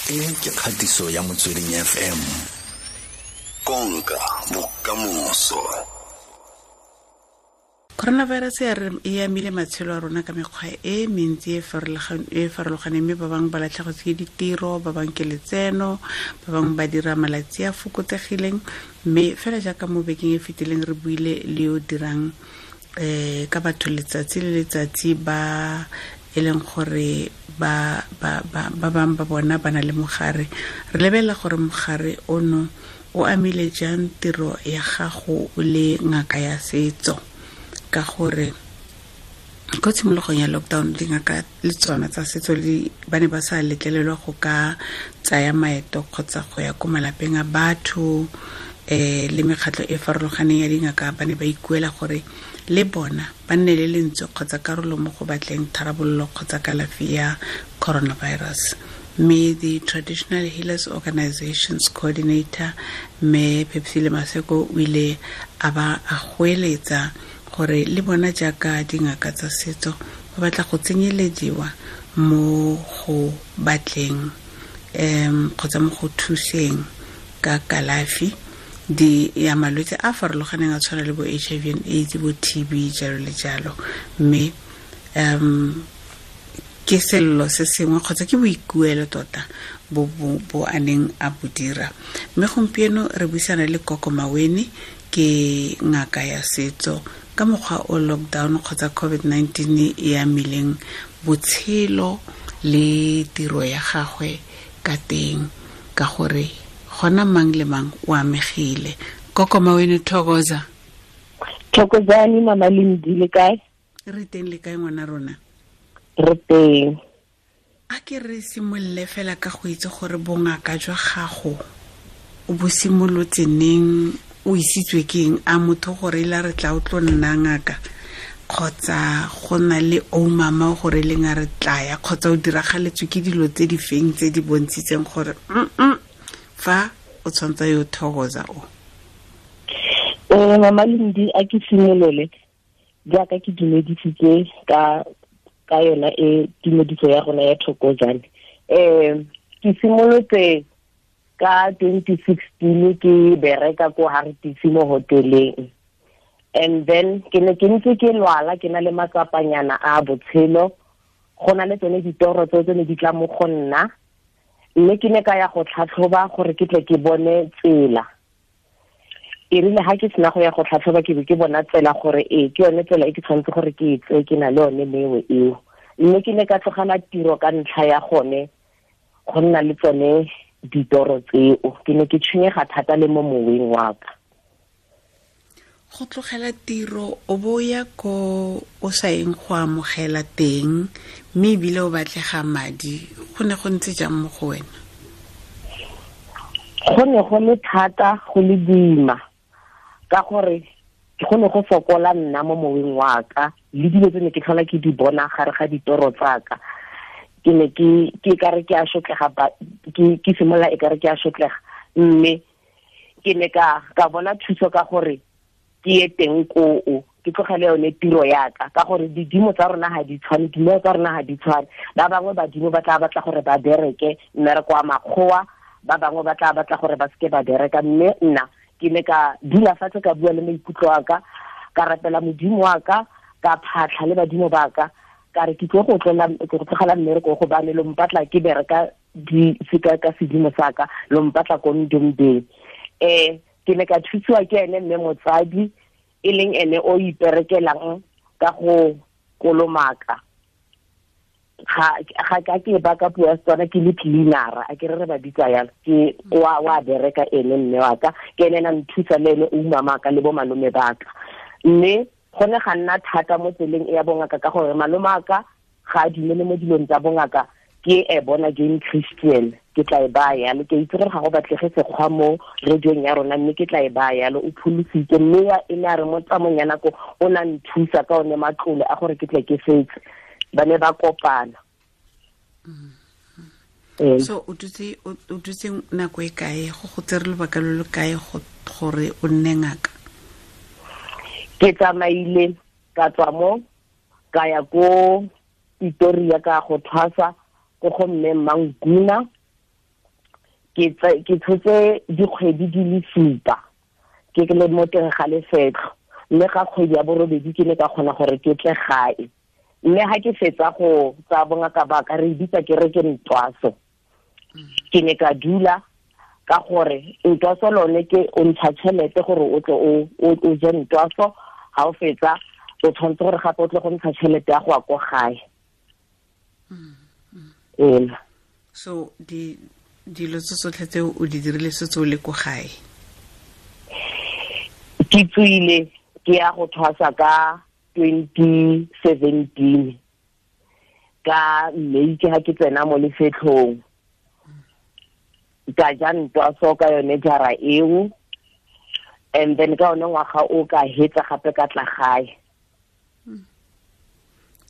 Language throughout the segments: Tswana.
E ke kgatiso ya Motsweding FM. Konka bokamoso. Coronavirus ya re e amile matshelo a rona ka mekgwa e mentsi e farologaneng, mme ba bangwe ba latlhegetswe ke ditiro, ba bangwe ke letseno, ba bangwe ba dira malatsi a fokotsegileng. Mme fela jaaka mo bekeng e fetileng re buile le yo dirang ka batho letsatsi le letsatsi ba e leng gore ba bangwe ba bona ba na le mogare. Re lebelela gore mogare ono o amile jang tiro ya gago o le ngaka ya setso, ka gore ko tshimologong ya lockdown dingaka le tsona tsa setso ba ne ba sa letlelelwa go ka tsaya maeto kgotsa go ya ko malapeng a batho. Le mekgatlho e farologaneng ya dingaka ba ne ba ikuela gore le bona ba nne le lentswe kgotsa karolo mo go batleng tharabololo kgotsa kalafi ya coronavirus. Mme the Traditional Healers Organizations Coordinator mme Phepsile Maseko o ile a ba a goeletsa gore le bona jaaka dingaka tsa setso ba batla go tsenyelediwa mo go batleng kgotsa mo go thuseng ka kalafi di ya malwetse a farologaneng a tshwana le bo HIV and AIDS, bo TB, jalo le jalo. Mme ke sello se sengwe kgotsa ke boikuelo tota bo a neng a bo dira. Mme gompieno re buisana le Koko Maweni, ke ngaka ya setso, ka mokgwa o lockdown kgotsa COVID-19 e amileng botshelo le tiro ya gagwe ka teng, ka gore gona mang le mang o amegile. Koko Maweni, thokoza. Thokozani mama Lindi, le kae? Re teng, le kae ngwana rona? Re teng. A ke re simolole fela ka go itse gore bongaka jwa gago o bo simolotse neng, o isitswe ke eng? A motho gore ila re tla o tlo nna ngaka, kgotsa go na le o mama gore leng a re tlaya, kgotsa o diragaletswe ke dilo tse di feng tse di bontshitseng gore fa o tshwanetse yo thokoza o? Mama Lindi, a ke simolole jaaka ke dumedisitse ka yona e tumediso ya rona ya thokozane. Ke simolotse ka 2016 ke bereka ko Hartisi mo hoteleng, and then ke ne ke ntse ke lwala, ke na le matsapanyana a botshelo, go na le tsone ditoro tse ne di tla mo go nna, mme ke ne ka ya go tlhatlhoba gore ke tle ke bone tsela. E rile ha ke sena go ya go tlhatlhoba, ke be ke bona tsela gore ee ke yone tsela e ke tshwanetse gore ke e tseye, ke na le yone mewe eo. Mme ke ne ka tlogela tiro ka ntlha ya gone go nna le tsone ditoro tseo. Ke ne ke tshwenyega thata le mo moweng wa ka. Go tlogela tiro o bo ya ko o sa eng go amogela teng, mme ebile o batlega madi, go ne go ntse jang mo go wena? Go ne go le thata, go le boima, ka gore go ne go fokola nna mo moweng wa ka, le dilo tse ne ke tlhola ke di bona gare ga ditoro tsa ka. Ke ne ke kare ke a shotlega, ke simolola e kare ke a shotlega, mme ke ne ka bona thuso ka gore ke ye teng koo, ke tlogele yone tiro ya ka, ka gore didimo tsa rona ga di tshwane, dimeo tsa rona ga di tshwane. Ba bangwe badimo ba tla batla gore ba bereke mmereko wa makgowa, ba bangwe ba tla batla gore ba seke ba bereka. Mme nna ke ne ka dula fatshe, ka bua le maikutlo a ka, ka rapela modimo wa ka, ka phatlha le badimo ba ka, ka re ke tlo go tlogela mmereko gobane lo mpatla ke bereka di seka ka sedimo sa ka, lo mpatla ko ndombeng. Ke ne ka thusiwa ke ene mme motsadi, e leng ene o iperekelang ka go kolomaka. Ga ka ke ba ka puo ya Setswana ke le cleanera, a ke re ba bitsa yalo, ke wa bereka ene mme wa ka, ke ene na nthusa le ene o mama ka le bo malome ba ka. Mme go ne ga nna thata mo tseleng e ya bongaka, ka gore malome a ka ga a dumele mo dilong tsa bongaka, ke e bona again Christian, ke tla e baya yalo. Ke itse gore ga go batlege sekgwa mo radiong ya rona, mme ke tla e baya yalo. O pholositse, mme e ne a re mo tsamong ya nako o na nthusa ka one matlole a gore ke tle ke fetse. Ba ne ba kopana. So o dutse nako e kae, go tsere lobaka lo lo kae gore o nne ngaka? Ke tsamaile ka tswa mo ka ya ko Pretoria ka go thwasa ko go mme Manguna, Ke tshotse dikgwedi di le 7 ke le mo teng ga lefetlho, mme ga kgwedi ya borobedi ke ne ka kgona gore ke tle gae. Mme ha ke fetsa go tsa bongaka ba ka re bitsa ke re ke ntwaso, ke ne ka dula ka gore ntwaso lone ke o ntsha tšhelete gore o tle o je ntwaso, ha o fetsa o tshwanetse gore gape o tle go ntsha tšhelete ya go ya ko gae. So dilo tse tsotlhe tse o di dirile setse o le ko gae? Ke tswile ke ya go thwasa ka 2017 ka May, ke ha ke tsena mo lefetlhong ka ja ntwaso ka yone jara eo, and then ka one ngwaga o ka hetsa gape ka tla gae.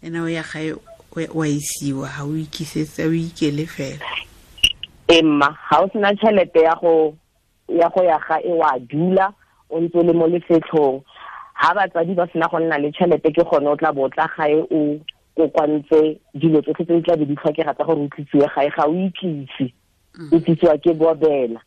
Ena o ya gae wa isiwa, ha o ikisetse, o ikele fela? Emma, ha o sena tšhelete ya go ya gae wa dula o ntse le mo lefetlhong. Ha batsadi ba sena go nna le tšhelete ke gone o tla bo tla gae o kokwantse dilo tsotlhe tse di tla be di tlhokega tsa gore o tlisiwe gae, ga o itlise, o tlisiwa ke bobela.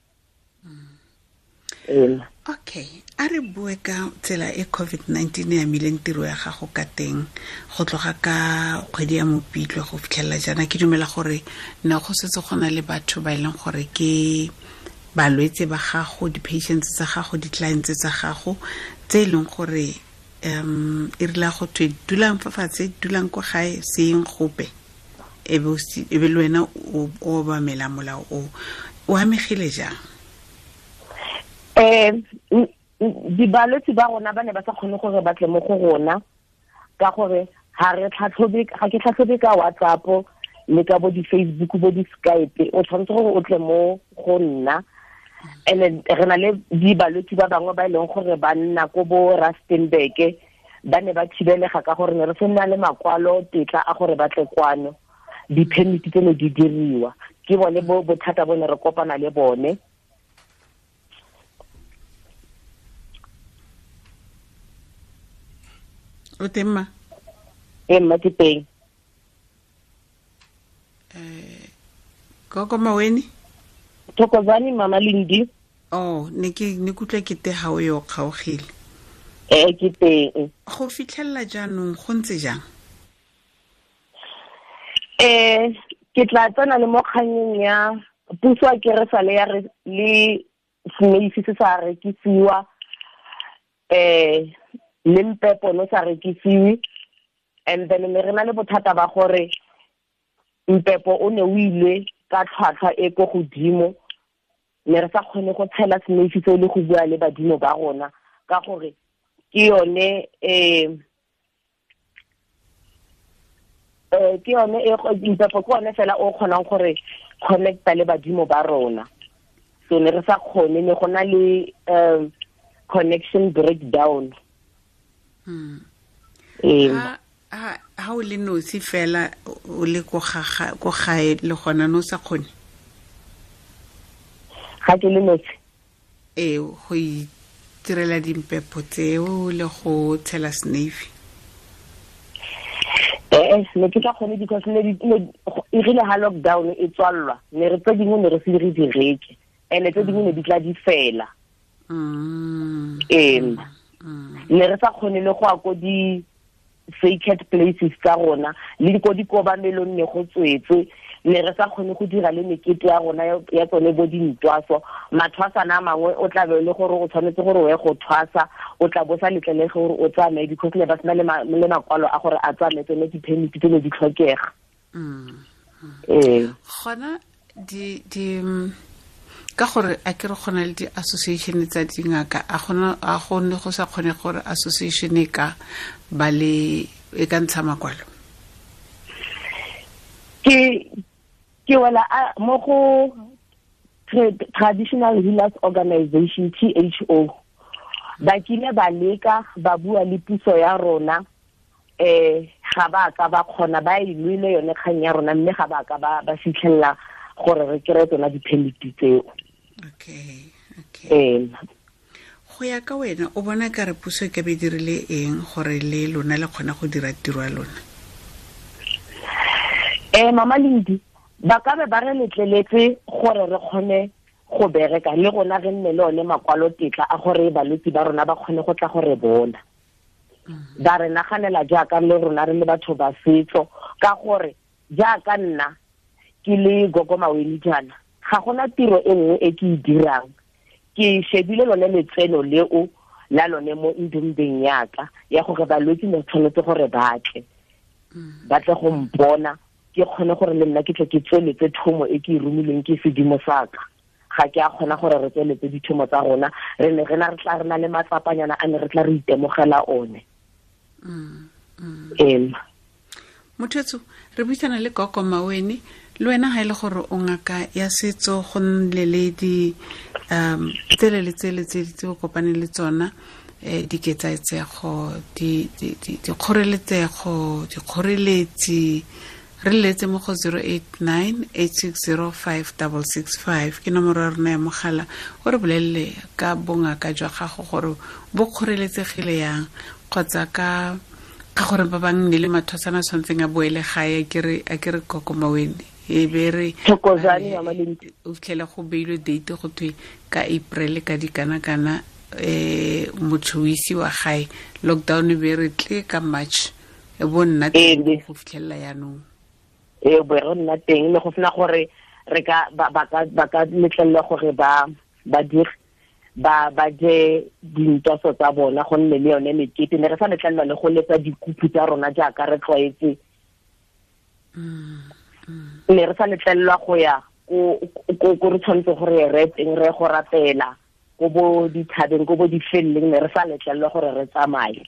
Okay, a re bue ka tsela e COVID-19 e amileng tiro ya gago ka teng go tloga ka kgwedi ya Mopitlwe go fitlhelela jaana. Ke dumela gore ne go setse go na le batho ba e leng gore ke balwetse ba gago, di-patients tsa gago, di-clients tsa gago tse e leng gore e rile go thwe dulang fa fatshe, dulang kwa gae, seng gope, e be le wena o obamela molao o. O amegile jang? Dibalwetse ba rona ba ne ba sa kgone gore ba tle mo go rona ka gore ga re tlhatlhobe, ga ke tlhatlhobe ka WhatsApp le ka bo di-Facebook bo di-Skype, o tshwanetse gore o tle mo go nna. And re na le dibalwetse ba bangwe ba e leng gore ba nna ko bo Rustenburg, ba ne ba thibelega ka gore ne re sena le makwalo tetla a gore ba tle kwano, di-permit tse ne di diriwa. Ke bone bothata bo ne re kopana le bone. O teng ma? Ee mma, ke teng. Gogo Maweni? Thokozani Mama Lindi. Oh, ne ke kutlwa ke te ha o yo kgaogile. Ee, ke teng. Go fitlhelela jaanong go ntse jang? Ke tla tsena le mo kganyeng ya puso a ke re sale ya re le semeisi se sa rekisiwa, le mpepo no sa rekisiwe, and then me re na le bothata ba gore mpepo o ne o ile ka tlhwatlhwa e ko godimo, ne re sa kgone go tshela semeisi seo le go bua le badimo ba rona ka gore ke yone ke yone mpepo ke one fela o kgonang gore connecta le badimo ba rona. So ne re sa kgone, ne go na le connection breakdown. Ha o le nosi fela o le ko gae le gona no sa kgone? Ga ke le nosi. Ee, go itirela dimpepo tseo le go tshela snafe. Ne ke sa kgone because ne e rile ha lockdown e tswallwa, ne re tse dingwe ne re se re di reke, and tse dingwe ne di tla di fela. Ne re sa kgone le go ya ko di sacred places tsa rona le ko dikobamelong ne go tswetswe, ne re sa kgone go dira le mekete ya rona ya tsone bo dintwaso. Mathwasana a mangwe o tla be le gore o tshwanetse gore o ye go thwasa, o tla bo sa letlelege gore o tsamaye because ne ba sena le makwalo a gore a tsamaye, tsone di-permit tse ne di tlhokega. Gona di ka gore a ke re gona le di-association tsa dingaka, a gone go sa kgone gore association e ka ba le e ka ntsha makwalo? Ke wela mo go Traditional Healers Organization, THO. Ba kile ba leka ba bua le puso ya rona, ga ba ka ba kgona, ba e lwele yone kgang ya rona, mme ga ba ka ba fitlhelela gore re kry-e tsona di-permit tseo. Okay. Go ya ka wena, o bona ka re puso e ka be dirile eng gore le lona le kgona go dira tiro ya lona? Mama Lindi, ba ka be ba re letleletse gore re kgone go bereka le rona re nne le one makwalo tetla a gore balwetse ba rona ba kgone go tla go re bona. Ba re naganela jaaka le rona re le batho ba setso, ka gore jaaka nna ke le Gogo Maweni jaana, ga gona tiro e nngwe e ke e dirang. Ke shebile lone letseno leo la lone mo ndumbeng yaka ya gore balwetse ne tshwanetse gore ba tle ba tle go mpona, ke kgone gore le nna ke tle ke tsweletse thomo e ke e romileng ke sedimo saka. Ga ke a kgona gore re tsweletse dithomo tsa rona, re ne re na re tla re na le matsapanyana a ne re tla re itemogela one. Mothetso, re buisana le Gogo Maweni. Le wena ha ile gore o ngaka ya setso, go nne le di tsele le tsele tse o kopane le tsona, diketsaetsego, dikgoreletsego, dikgoreletsi. Re letse mo go 089 860 5665 ke nomoro ya rona ya mogala, o re bolelele ka bongaka jwa gago gore bo kgoreletsegile yang, kgotsa ka gore ba bang ne le mathosana a tshwanetseng a boele gae. A ke re Gogo Maweni, e be re o fitlhela go beilwe date go thwe ka April ka dikana-kana, motho o isiwa gae, lockdown e be re tle ka March, e bo nna teng go fitlhelela yaanong. E bo re nna teng le go sena gore re ka ba ka letlelelwa gore ba dire ba je dintoso tsa bona, go nne le yone mekete. Ne re sa letlelelwa le go letsa dikupu tsa rona jaaka re tlwaetse. Ne re sa letlelelwa go ya ko re tshwanetse gore re teng re go rapela ko bo dithabeng, ko bo difelleng, ne re sa letlelelwa gore re tsamaye.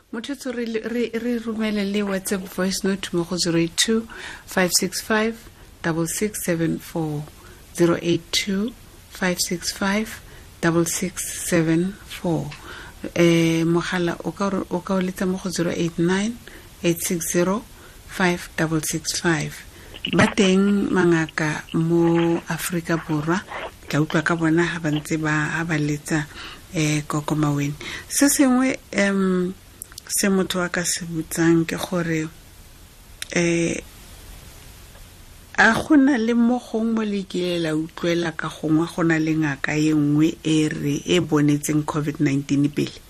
Mothetso, re romele le WhatsApp voice note mo go 082 565 6674, 082 565 6674. Mogala o ka o letsa mo go 089 860 5665. Ba teng mangaka mo Afrika Borwa, tla utlwa ka bona ha ba ntse ba letsa Gogo Maweni. Se sengwe se motho a ka se botsang ke gore a gona le mo gongwe mo le kile la utlwela ka gongwe go na le ngaka e nngwe e re e bonetseng COVID-19 pele?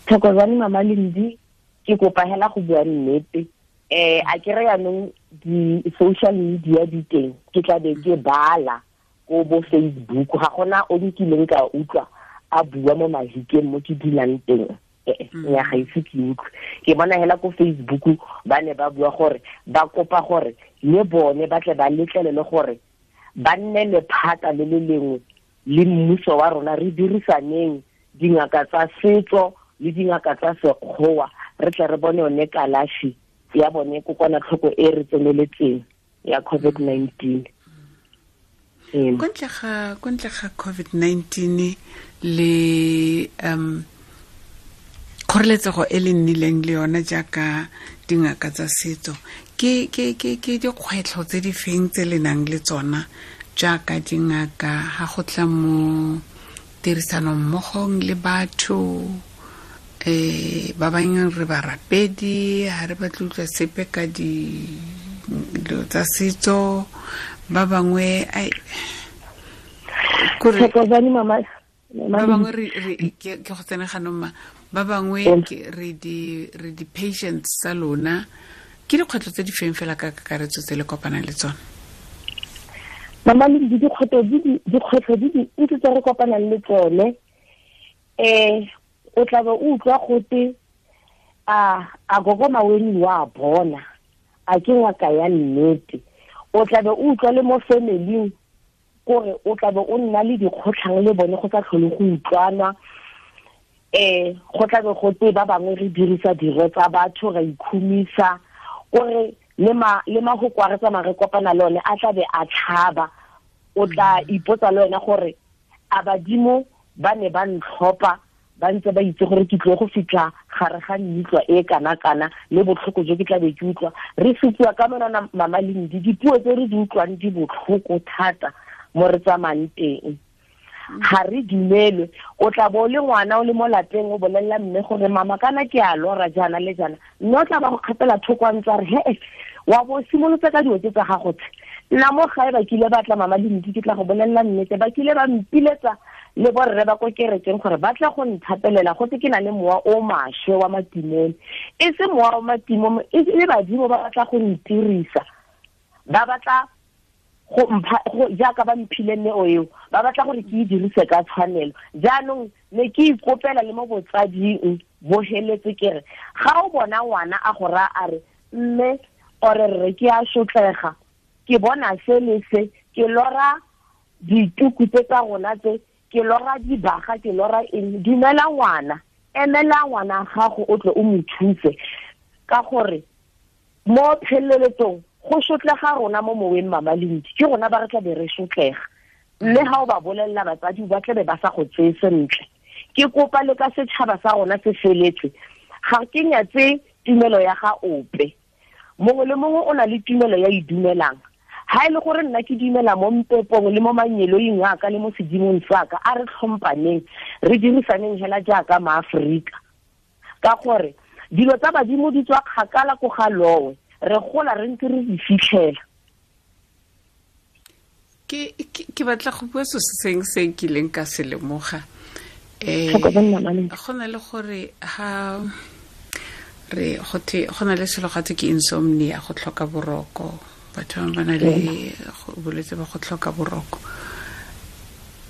Thokozani Mama Lindi, ke kopa hela go bua nnete. A ke re yanong di-social media di teng, ke tla be ke bala ko bo Facebook, ga gona o nkileng ka utlwa a bua mo mahikeng mo ke dulang teng. Ya ga ise ke utlwe. Ke bona hela ko Facebook ba ne ba bua gore ba kopa gore le bone ba tle ba letlelele gore ba nne lephata le le lengwe le mmuso wa rona, re dirisaneng dingaka tsa setso le dingaka tsa sekgowa, re tle re bone yone kalafi ya bone kokwanatlhoko e re tseneletseng ya COVID-19. Ko ntle ga COVID-19 le kgoreletsego e le nnileng le yona jaaka dingaka tsa setso, ke dikgwetlho tse di feng tse le nang le tsona jaaka dingaka ha go tla mo tirisanong mmogong le batho? Ba bangwe re barapedi, ha re batle utlwa sepe ka dilo tsa setso, ba bangwe ba bangwe re ke go tsena ganong ma, ba bangwe re di patients tsa lona. Ke dikgwetlho tse di feng fela ka kakaretso tse le kopanang le tsona? Mama le dikgwetlho di dintsi tse re kopanang le tsone. O tla be o utlwa gote a Gogo Maweni wa bona, a ke ngaka ya nnete. O tla be o utlwa le mo family-ing kore o tla be o nna le dikgotlhang le bone, go sa tlhole go utlwana. Go tla be go te ba bangwe re dirisa diro tsa batho ra ikhumisa, kore le mahoko a re tsamaya re kopana le one a tla be a tlhaba. O tla ipotsa le wena gore a badimo ba ne ba ntlhopha ba ntse ba itse gore ke tlo go fitlha gare ga mmitlwa e kana-kana le botlhoko jo ke tla be ke utlwa. Re supiwa ka monana Mama Lindi, dipuo tse re di utlwang di botlhoko thata mo re tsamayang teng. Ga re dumelwe. O tla bo le ngwana o le mo lapeng o bolelela mme gore mama kana ke a lora jaana le jaana, mme o tla ba go kgapela thoko a ntse a re he Wa bo simolotse ka dilo tse tsa gago tse. Nna mo gae ba kile ba tla Mama Lindi, ke tla go bolelela nnete, ba kile ba mpiletsa le borre ba ko kerekeng gore ba tla go nthapelela go tse ke na le mowa o maswe wa matimone. E se mowa wa matimone, e le badimo ba batla go ntirisa. Ba batla go mpha jaaka ba mphile neo eo, ba batla gore ke e dirise ka tshwanelo. Jaanong ne ke ikopela le mo botsading bo heletse ke re ga o bona ngwana a go raya a re mme ore rre ke a sotlega, ke bona se le se, ke lora dituku tse tsa rona tse, ke lora dibaga, ke lora eng, dumela ngwana, emela ngwana gago o tle o mo thuse, ka gore mo pheleletsong go sotlega rona mo moweng Mama Lindi, ke rona ba re tla be re sotlega. Mme ga o ba bolelela batsadi ba tlabe ba sa go tseye sentle. Ke kopa le ka setšhaba sa rona se feletse, ga ke nyatse tumelo ya ga ope, mongwe le mongwe o na le tumelo ya e dumelang. Ha e le gore nna ke dumela mo mpepong le mo manyeloing a ka le mo sedimong sa ka, a re tlhompaneng, re dirisaneng hela jaaka maAforika, ka gore dilo tsa badimo di tswa kgakala ko ga lowe, re gola re ntse re di fitlhela. Ke batla go bua so se seng se nkileng ka se lemoga. Go na le gore ha re go na le selo gatwe ke insomnia, go tlhoka boroko. Batho ba na le bolwetse ba go tlhoka boroko.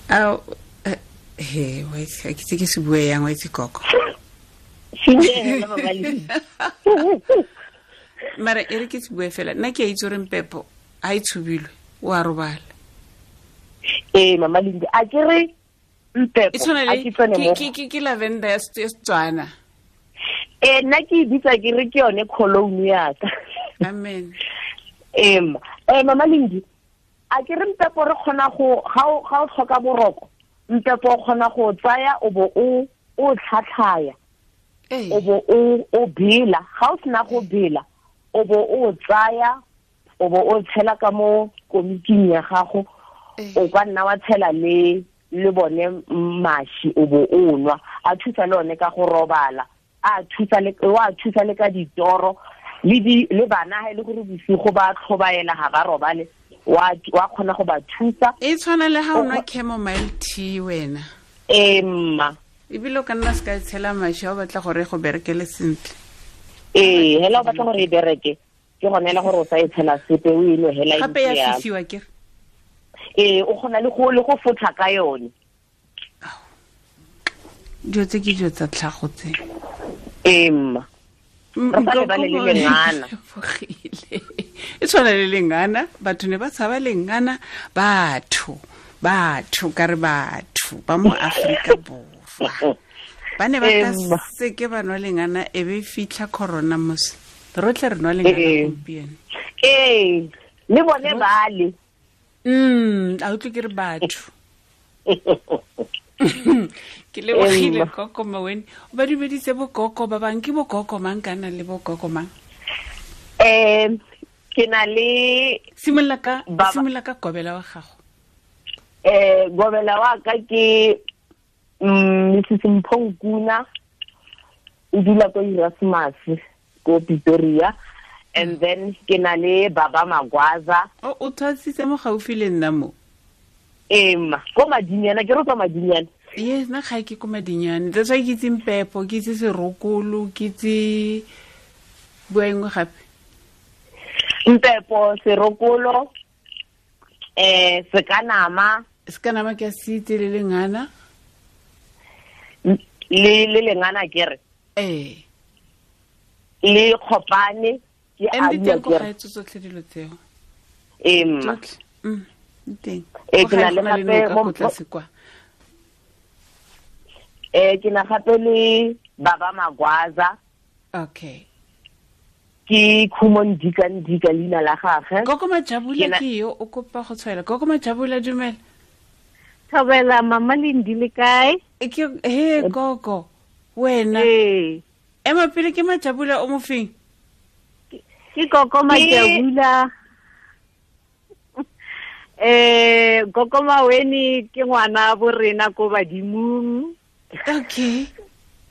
A he wa itse ke tse ke se bue yang wa itse koko. Mara e re ke se bue fela, nna ke a itse gore mpepo a e tshubilwe, o a robala. Ee Mama Lindi, a ke re mpepo a ke tsene mo ke lavender ya Setswana. Ee, nna ke e bitsa ke re ke yone cologne ya ka. Amen. Mama Lindi, a ke re mpepo re kgona go ga o tlhoka boroko, mpepo o kgona go tsaya o bo o tlhatlhaya, o bo o bela. Ga o sena go bela, o bo o tsaya o bo o tshela ka mo komiking ya gago, o ka nna wa tshela le bone mashi, o bo o nwa. A thusa le one ka go robala, a thusa le wa thusa le ka ditoro, le bana ha e le gore bosigo ba tlhobaela ga ba robale, wa kgona go ba thusa. E tshwana le ha o nwa chamomile tea wena. Ee mma. Ebile o ka nna se ka tshela mashi ha o batla gore go berekele sentle. Ee, hela o batla gore e bereke, ke gone hela gore o sa e tshela sepe, o e nwe hela e gape ya fisiwa ke. Ee, o kgona le go fotha ka yone. Dilo tse ke dilo tsa tlhago tse. Ee mma. Re sa lebale le lengana. E tshwana le lengana, batho ne ba tshaba lengana, batho ka re batho ba mo Afrika Borwa. Ba ne ba ka seke ba nwa lengana, e be fitlha corona mos. Rotlhe re nwa lengana gompieno. Ee, le bone bale. A utlwe ke re batho. Ke lebogile koko Maweni. O ba dumeditse bokoko ba bang, ke bokoko mang kana le bokoko mang? Ke na le simolola ka gobela wa gago. Gobela wa ka ke Mrs Mphonkuna, o dula ko Erasmus ko Pretoria, and then ke na le Baba Magwaza. O tshwasitse mo gaufi le nna mo. Emma, ko Madinyana, ke re tswa Madinyana. Yes, nna ga ke ko Madinyana. That's why ke itse mpepo, ke itse serokolo, ke itse bua engwe gape. Mpepo, serokolo, sekanama. Sekanama ke a se itse, le lengana. Le lengana ke re. Ee. Le khopane ke a bua ke re. Teng tsotlhe dilo tseo. Emma. Teng. Ke na le gape mo tlase kwa. Ke na gape le Baba Magwaza. Okay. Ke Khumo Ndika Ndika leina la gagwe. Koko Majabula ke yo o kopa go tshwaela. Koko Majabula, dumela. Thobela Mama Lindi, le kae? Ke he koko wena. Ee. Ema pele ke Majabula o mofeng? Ke koko Majabula. Koko Maweni ke ngwana bo rena ko badimong. Okay.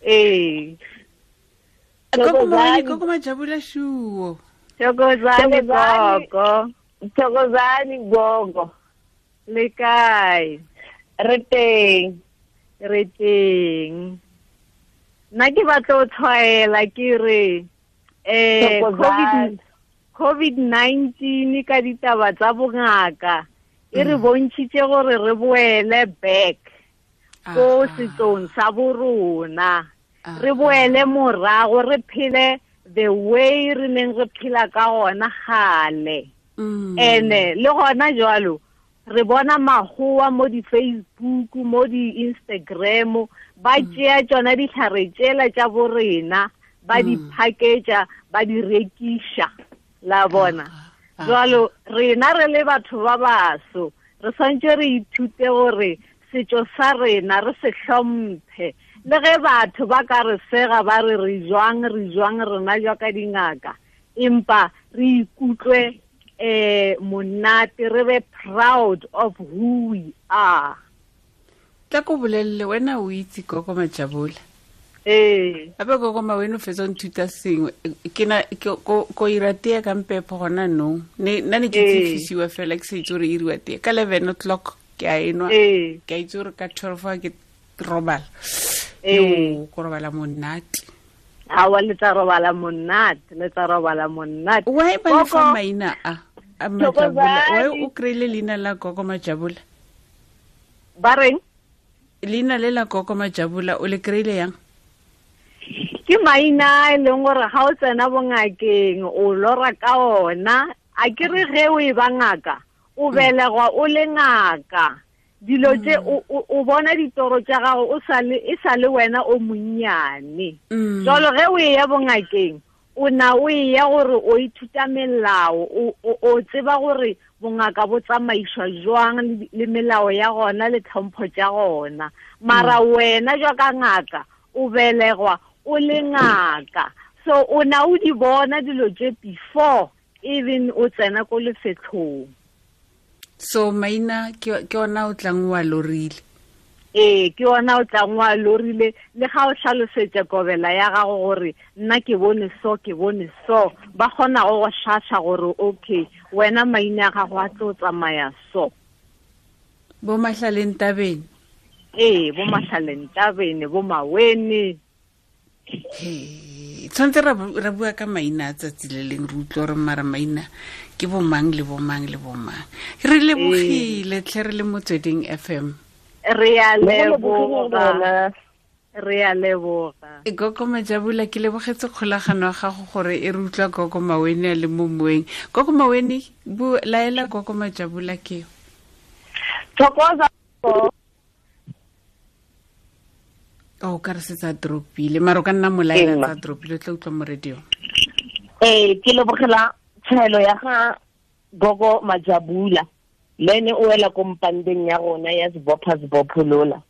Ee. Koko Maweni, koko Majabula shuo. Thokozani gogo. Thokozani gogo. Le kae? Re teng. Re teng. Nna ke batla o tshwaela ke re COVID-19 ka ditaba tsa bongaka e re bontšhitše gore re boele back ko setsong sa borona, re boele morago, re phele the way re neng re phela ka gona gale. Ene le gona jwalo re bona magoa mo di-Facebook, mo di-Instagram, ba tšea tšona ditlhare tšela tša borena, ba di package-a, ba di rekiša, la bona. Jwalo rena re le batho ba baso re swantse re ithute gore setšo sa rena re se hlomphe, le ge batho ba ka re sega ba re re jwang rena jwa ka dingaka, empa re ikutlwe monate, re be proud of who we are. Tla ko bolelele wena o itse Gogo Majabula. Ee. Ape Gogo Mawene o fetsa o nthuta sengwe. Ke na ko ira tee ka mpepho gona nong. Nna ne ke tsifisiwa fela ke sa itse gore e iriwa tee. Ka 11 o'clock ke a enwa. Ke a itse gore ka 12 ke robala. Yo, ko robala monate. Awa, le tla robala monate, le tla robala monate. Why ba le fa maina a Majabula? Why o kry-ile leina la Gogo Majabula? Ba reng? Leina le la Gogo Majabula o le kry-ile yang? Ke maina e leng gore ga o tsena bongakeng o lora ka ona. A ke re ge o e ba ngaka, o belegwa o le ngaka. Dilo tse o bona ditoro tša gago o e sa le wena o monnyane. Jalo ge o e ya bongakeng, o na o e ya gore o ithuta melao, o tseba gore bongaka bo tsamaiswa jwang le melao ya gona le tlhompho tša gona. Mara wena jwa ka ngaka o belegwa o le ngaka, so o na o di bona dilo tše before even o tsena ko lefetlhong. So maina ke ona o tlang wa lorile. Ee, ke ona o tlang wa lorile. Le ga o hlalosetša kobela ya gago gore nna ke bone so, ke bone so, ba kgona go go hlahla gore okay, wena maina a gago a tlo tsamaya so. Bo Mahlaleng Tabeng. Ee, bo Mahlaleng Tabeng, bo Mawene. Tshwanetse ra bua ka maina a tsatsi le leng, re utlwe gore mara maina ke bomang le bomang le bomang. Re lebogile tlhe, re le Motsweding FM. Re a leboga. Re a leboga. Gogo Majabula, ke lebogetse kgolagano ya gago gore e re utlwa Gogo Mawene a le mo moeng. Gogo Mawene, bu laela Gogo Majabula ke. Thokoza. O ka re se tsa dropile, mara o ka nna molaela tsa dropile, o tla utlwa mo radio. Ee, ke lebogela tshwaelo ya ga Gogo Majabula. Le ene o wela ko mpandeng ya rona ya Sebopha Sebopholola.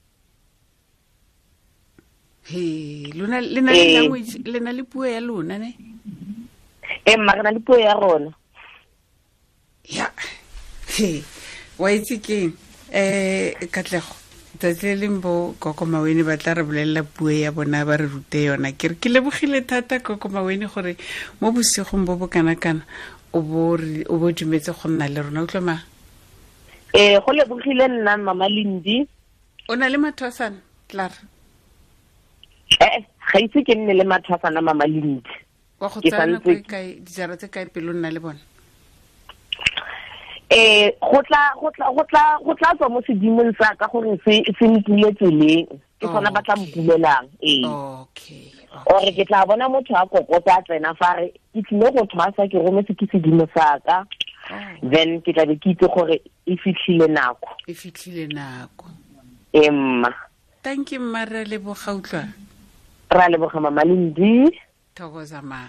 He, lona le na le language, le na le puo ya lona ne? Ee, mma, re na le puo ya rona. Ya. He, wa itse keng? Katlego, tsatsi le leng bo Gogo Mawene ba tla re bolelela puo ya bona, ba re rute yona. Ke re ke lebogile thata Gogo Mawene gore mo bosigong bo bo kana-kana o bo dumetse go nna le rona. Utlwa ma? Ee, go lebogile nna Mama Lindi. O na le mathwasana, Clara? Ga itse ke nne le mathwasana Mama Lindi. Wa go tsaya nako e kae, dijara tse kae pele o nna le bona? Go tla tswa mo sedimong sa ka gore se mpule tseleng, ke sona ba tla mpulelang. Ee. Okay. Ore ke tla bona motho a kokota a tsena fa re ke tlile go thwasa, ke rometse ke sedimo sa ka. Then ke tla be ke itse gore e fitlhile nako. E fitlhile nako. Ee mma. Thank you mma, re leboga utlwa. Ra leboga Mama Lindi. Thokoza ma.